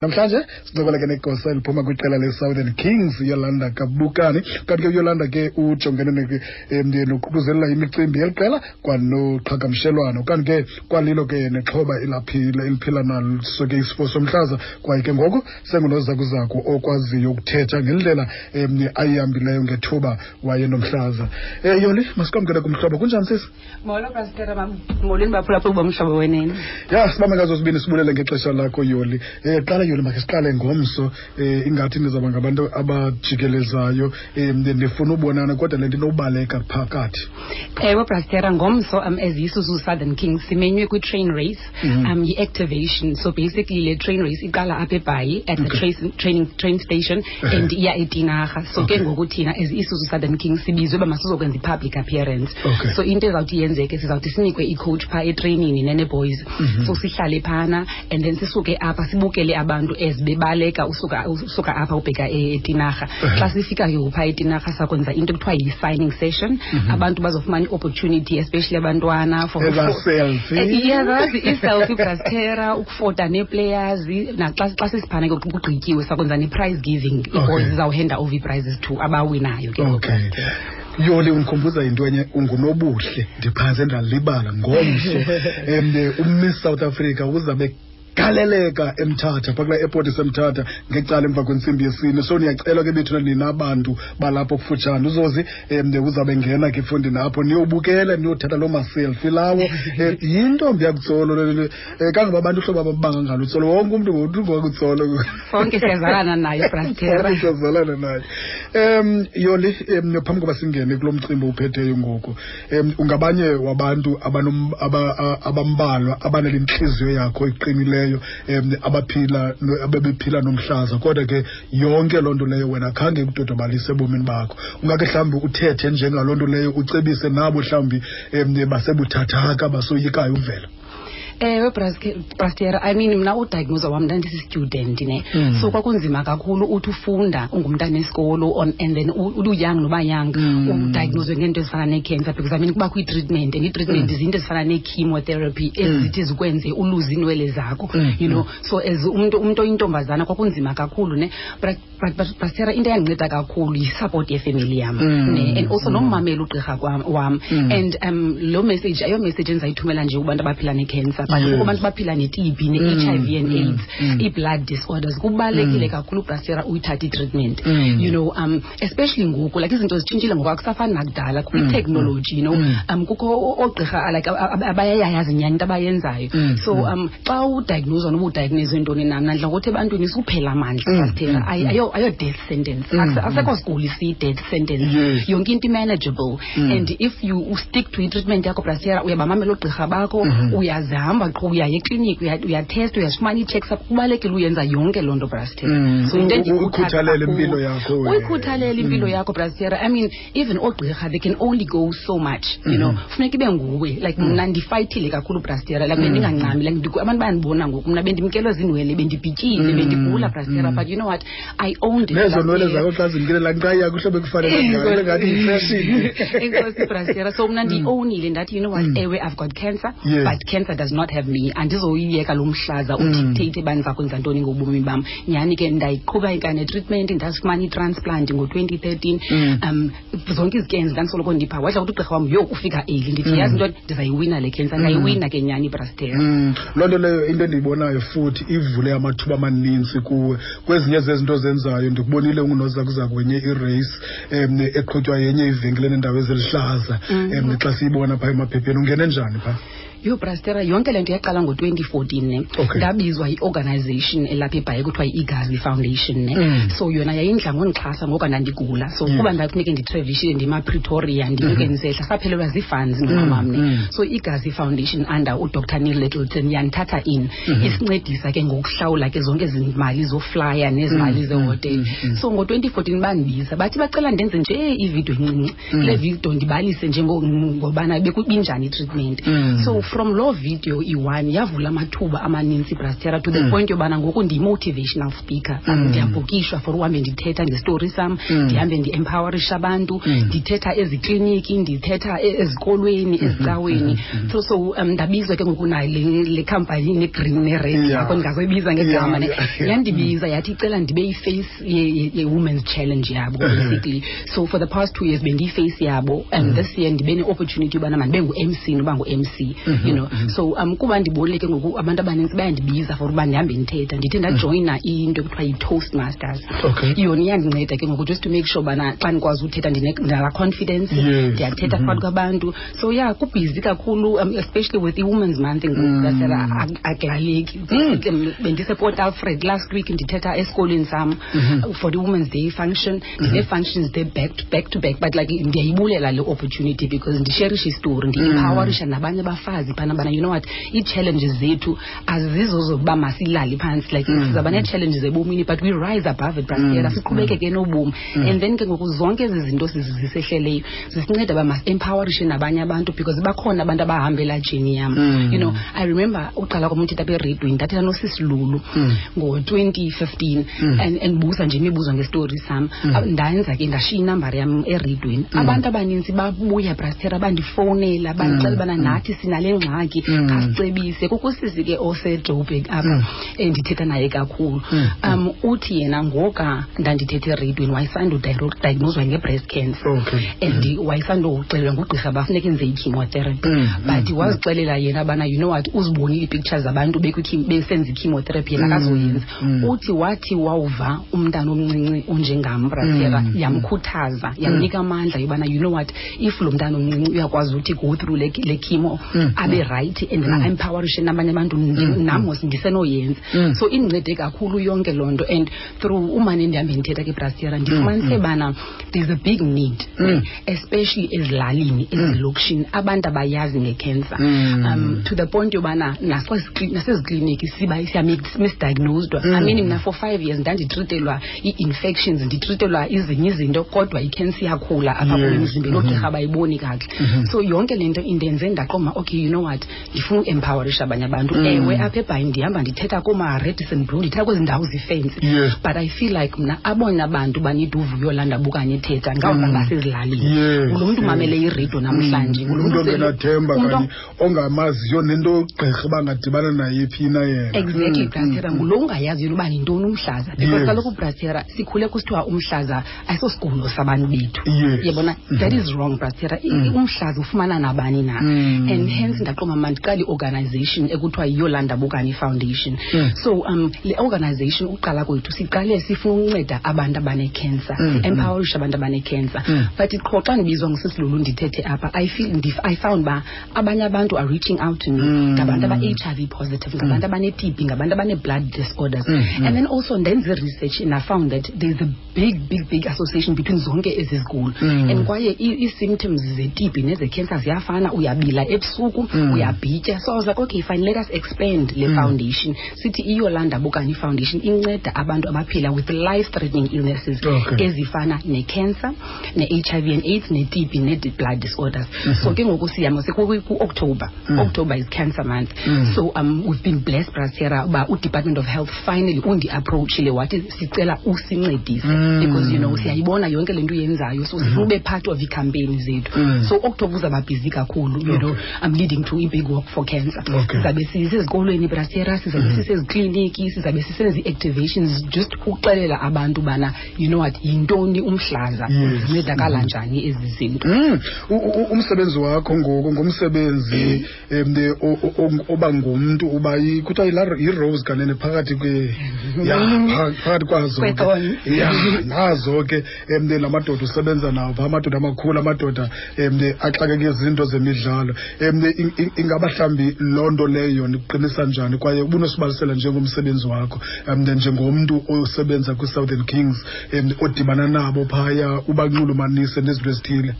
Namhlanje sincokola ke negosa eliphuma kwiqela le-Southern Kings, Yolanda Kabukani. Kanti ke uYolanda ke ujongene noququzelela imicimbi yeli qela kwanoqhagamshelwano. Kanti ke kwalilo ke nexhoba elaphila eliphila naso ke isifo somhlaza, kwaye ke ngoku sengunozakuzaku okwaziyo ukuthetha ngendlela ayihambileyo ngethuba wayenomhlaza. Yoli, masikwamkele kumhlobo. Kunjani, sisi? Molo, Pastor. Molweni, baphulaphuli boMhlobo Wenene. Ya, sibambe ngazo sibini, sibulele ngexesha lakho, Yoli. Qala Yoli, makhe siqale ngomso. Ingathi nizawuba ngabantu abajikelezayo, ndifuna ubonana, kodwa le nto inobaleka phakathi. Ewe, Pastor, ngomso as Isuzu Southern Kings simenywe kwi-train race, yi-activation. So basically le train race iqala apha eBhayi at the train station and iya eTinarha. So ke ngoku thina as Isuzu Southern Kings sibizwe uba masizokwenza i-public appearance. So into ezawuthi yenzeke, sizawuthi sinikwe i-coach phaa etreyinini nene-boys. So sihlale phana and then sisuke apha sibukele abantu as bebaleka usuka apha ubheka eTinarha. Xa sifika ke phaa eTinarha sakwenza into ekuthiwa yi-signing session. Abantu bazofumana i-opportunity, especially abantwana, for Eza selfie. Yeah, i-selfie, Brastera, ukufota nee-players. Naxa xa sisiphana ke kugqityiwe, sakwenza ne-prize giving. Ii-boys zizawuhanda over ii-prizes to abawinayo ke. Okay. Yoli, undikhumbuza into enye, ungunobuhle, ndiphantse ndalibala. Ngomso uMiss South Africa uzabe galeleka eMthatha, phaa kulaa airport iseMthatha, ngecala emva kwentsimbi yesine. So niyacelwa ke bethuna, nina bantu balapho kufutshane, uzozi uzawube ngena ke efondini apho, niyobukela, niyothatha loo maselfie lawo. Yintombi yakuTsolo le, kangoba abantu uhlobo ababanga ngalo uTsolo, wonke umntu ngokuTsolo. Sonke siyazalana naye, Brastera. Sonke siyazalana naye. Yoli, phambi koba singene kulo mcimbi uphetheyo ngoku, ungabanye wabantu abambalwa abanale ntliziyo yakho iqinileyo, abaphila abebephila nomhlaza, kodwa ke yonke loo nto leyo wena khange ikudodobalise ebomini bakho. Ungake mhlawumbi uthethe njengaloo nto leyo, ucebise nabo mhlawumbi basebuthathaka, basoyikayo uvela? Ewe, Brastera, I mean, mna udiagnose wam ndandisi-student ne. So kwakunzima kakhulu, uthi ufunda, ungumntana esikolo on and then uyoung noba young, udiagnoswe ngeento ezifana nee-cancer, because I mean kubakho i-treatment, and i-treatment zinto ezifana nee-chemotherapy ezithi zikwenze uluze iinwele zakho. So as umntu oyintombazana kwakunzima kakhulu ne. But Brastera, into eyandinceda kakhulu yi-support yefemeli yam ne, and also nommamela ugqirha wam. And lo message ayo message endizayithumela nje kubantu abaphila ne-cancer, but kubantu abaphila ne-TB, ne-HIV and AIDS, ii-blood disorders. Kubalulekile kakhulu, Brastera, uyithathe i-treatment. Especially ngoku, like izinto zitshintshile ngoku, akusafani nakudala, kukho i-technology. Kukho oogqirha like abayayazi nyhani into abayenzayo. So xa udiagnoswa, noba udiagnoswe ntoni na, mna ndidla ngokuthi ebantwini suphela amandla, Brastera. Ayo death sentence. Asekho siguli siyi-death sentence. Yonke into i-manageable. And if you stick to i-treatment yakho, Brastera, uyabamamela oogqirha bakho, uyazihamba qho, uyaya ekliniki, uyatesta, uyazifumana ii-checks up, kubalulekile uyenza yonke loo nto, Brastera. So into endiyikhuthaza Uyikhuthalele kakhulu- impilo yakho wena. Uyikhuthalele impilo yakho, Brastera. I mean, even oogqirha, they can only go so much. Funeka ibe nguwe. Like mna ndifayithile kakhulu, Brastera. Like bendingancami, like abantu bayandibona ngoku, mna bendimkelwe ziinwele, bendibhityile, bendigula, Brastera. But you know what? I owned it. Nezo nwele Brastera. zakho xa zimkile, laa nkqayi yakho, uhlobo ekufanele ngayo, ngathi yifashion. Enkosi, Brastera. So mna ndiyiowunile, ndathi, you know what, ewe, I've got cancer, but cancer does not have me. Andizoyiyeka lo mhlaza udictate uba ndiza kwenza ntoni ngobomi bam. Nyhani ke ndayiqhuba ikane treatment, ndazifumana i-transplant ngo-2013. Zonke izicans ndandisoloko ndipha, wadla ukuthi ugqirha wam, yho, ufika early. Ndithi, yazi ntoni, ndizayiwina le cancer. Ndayiwina ke nyhani, Brastera. Loo nto leyo, into endiyibonayo futhi ivule amathuba amaninzi kuwe kwezinye zezinto ozenzayo. Ndikubonile ungunozakuzaku wenye irace eqhutywa yenye ivenkile nendawo eziluhlaza. Xa siyibona phaa emaphepheni, ungene njani phaa? Yho, Brastera, yonke le nto yaqala ngo-2014 ne. Ndabizwa yi-organization elapha eBhayi kuthiwa yi-Igazi Foundation ne. So yona yayindla ngondixhasa ngoku ndandigula. So kuba ndafuneke nditravelishile, ndima-Pretoria, ndinyuke ndisehla, saphelelwa zii-funds nomamam ne. So iGazi Foundation under uDr Neil Littleton yandithatha in, isincedisa ke ngokuhlawula ke zonke ezi mali zoflya nezi mali zehotele. So ngo-2014 bandibiza, bathi bacela ndenze nje ividiyo encinci. Kule vidiyo ndibalise nje ngobana bekubinjani i-treatment. So From loo video i-one yavula amathuba amaninzi, Brastera, to the point yobana ngoku ndiyi-motivational speaker. Ndiyabhukishwa for uhambe ndithetha ngestori sam, ndihambe ndi-empowerisha abantu, ndithetha ezikliniki, ndithetha ezikolweni, ezicaweni. So ndabizwa ke ngoku nayo le company ne-green ne-red, yakho ndingazoyibiza ngegama, ne. Yandibiza yathi icela ndibe yi-face ye-women's challenge yabo, basically. So for the past 2 years bendiyi-face yabo, and this year ndibe ne-opportunity yobana mandibe ngu-MC noba ngu-MC. So kuba ndibonile ke ngoku abantu abanintsi bayandibiza for uba ndihambe ndithetha, ndithe ndajoyina into ekuthiwa yi-Toast Masters. Yona iyandinceda ke ngoku just to make sure ubana xa ndikwazi uthetha ndinalaa confidence, ndiyathetha phakathi kwabantu. So yeah, kubhizi kakhulu, especially with i-Women's Month ngoku, Brastera, akulaleki. Bendise-Port Alfred last week, ndithetha esikolweni sam for the Women's Day function. Ndinee-functions they back to back to back, but like ndiyayibulela le opportunity because ndisherisha istori, ndi-empowerisha nabanye abafazi phana bana, you know what, ii-challenges zethu azizo zokuba masilale phantsi. Like sizawuba nee-challenges ebomini, but we rise above it, Brastera, siqhubekeke nobomi. And then ke ngoku zonke ezi zinto zisehleleyo zisinceda uba masi-empowerishe nabanye abantu, because bakhona abantu abahambela journey yam. I remember uqala kwam uthetha apha eredweni, ndathetha nosisilulu ngo-2015 and buza nje imibuzo ngestori sam. Ndenza ke ndashiya inambari yam eredweni. Abantu abanintsi babuya, Brastera, bandifowunela, bandixela ubana nathi sinale ngxaki, khasicebise. Kukho usisi ke oseJoburg apha endithetha naye kakhulu. Uthi yena ngoka ndandithetha eredweni wayesandudiagnoswa nge-breast cancer and wayesandoxelelwa ngugqirha uba funeka enze i-chemotherapy, but wazixelela yena bana, you know what, uzibonile ii-pictures zabantu besenza i-chemotherapy, yena akazoyenza. Uthi wathi wawuva umntana omncinci onjengam, Brastera, yamkhuthaza, yamnika amandla yobana, you know what, if lo mntana omncinci uyakwazi uthi go through le chemo, abe right and then empowerishe nabanye abantu, nam mos ndisenoyenza. So indincede kakhulu yonke loo nto. And through umane ndihambe ndithetha ke, Brastera, ndifumanise bana there's a big need, especially ezilalini, ezilokishini, abantu abayazi nge-cancer, to the point yobana nasezikliniki siba siya-misdiagnosed. I mean, mna for 5 years ndanditritelwa ii-infections, nditritelwa izinye izinto, kodwa i-cancer iyakhula apha kum emzimbeni, oogqirha abayiboni kakuhle. So yonke le nto indenze ndaqoma, okay, you know what, ndifuna uempowerisha abanye abantu. Ewe, apha eBhayi ndihamba ndithetha kooma-Radisson Blu, ndithetha kwezi ndawo zifensi, but I feel like mna abona bantu banida uvuyo landabukanye ethetha ngabo basezilalini. Ngulo mntu umamele iredio namhlanje, ngulo umntu mntu ongenathemba kanye ongamaziyo nento gqirha bangadibana naye phi na yena. Exactly, Brastera, ngulo ungayaziyo uba yintoni umhlaza, because kaloku, Brastera, sikhule kusithiwa umhlaza ayisosigulo sabantu bethu. Yabona, that is wrong, Brastera. Umhlaza ufumana nabani na. And hence ndaqoma mandiqale i-organization ekuthiwa yiYolanda Bukani Foundation. So le organization, uqala kwethu siqale sifuna ukunceda abantu abane-cancer, empowerisha abantu abane-cancer. But qho xa ndibizwa ngusisilulu ndithethe apha, I feel I found uba abanye abantu are reaching out to me, ngabantu aba-HIV positive, ngabantu abane-TB, ngabantu abane-blood disorders. And then also ndenze research and I found that there's a big, big, big association between zonke ezi zigulo, and kwaye ii-symptoms ze-TB neze-cancer ziyafana, uyabila ebusuku, uyabhitya. So I was like, okay, fine, let us expand le foundation, sithi iYolanda Bukani Foundation inceda abantu abaphila with life threatening illnesses ezifana ne-cancer, ne-HIV and AIDS, ne-TB, ne-blood disorders. So ke ngoku siyama ku-October. October is Cancer Month. So we've been blessed, Brastera, uba uDepartment of Health finally undi-approachile, wathi sicela usincedise because siyayibona yonke le nto uyenzayo, so sifuna ube part of ii-campaign zethu. So October uzawuba busy kakhulu, I'm leading to i-big walk for cancer. Sizabe sisezikolweni, Brastera, sizabe sisezikliniki, sizabe sisenza ii-activations just ukuxelela abantu ubana, you know what, yintoni umhlaza, zincedakala njani ezi zinto. Umsebenzi wakho ngoku ngumsebenzi oba ngumntu uba kuthiwa yi-rose kanene phakathi kwe ya phakathi kwazo ke. Kwe-thorn. Ya, nazo ke la madoda usebenza nawo phaa, amadoda amakhulu, amadoda axakeke izinto zemidlalo. Ingaba mhlawumbi loo nto leyo nikuqinisa njani, kwaye ubunosibalisela njengomsebenzi wakho njengomntu osebenza kwi-Southern Kings, odibana nabo phaya, ubanxulumanise nezinto ezithile?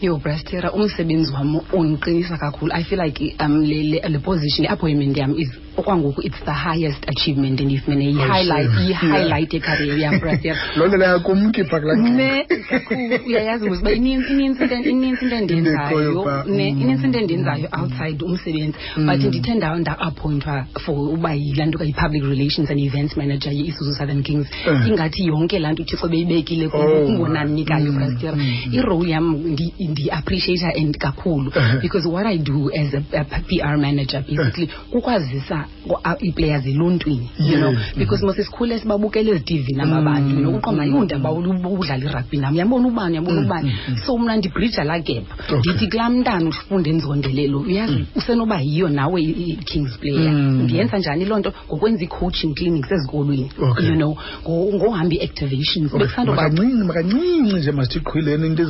Yo, Brastera, umsebenzi wam undiqinisa kakhulu. I feel like le position, i-appointment yam is Okwangoku it's the highest achievement endiyifumene, yi-highlight, yi-highlight yecareer yam, brother. Loo nto leyo kumkhipha kulaa. Ne, kakhulu. Uyayazi mos uba ininzi into endiyenzayo, ne, inintsi into endiyenzayo outside umsebenzi, but ndithe nda-appointwa for uba yilaa nto yi-public relations and events manager ye-Isuzu Southern Kings, ingathi yonke laa nto uThixo beyibekile kungonanikayo, brastera. Irole yam ndiyi-appreciate and kakhulu, because what I do as a PR manager basically kukwazisa ii-players eluntwini, because mos sikhule sibabukela ezi-TV naba bantu, uqonda yundaba udlala irugby nam, uyabona ubani, uyabona ubani. So mna ndibrija laa gap. Ndithi kulaa mntana ufunda enzondelelo, uyazi, usenoba yiyo nawe i-Kings player. Ndiyenza njani loo nto? Ngokwenza ii-coaching clinics ezikolweni, ngohamba ii-activations. Makancinci, makancinci nje, masithi qhwileni into.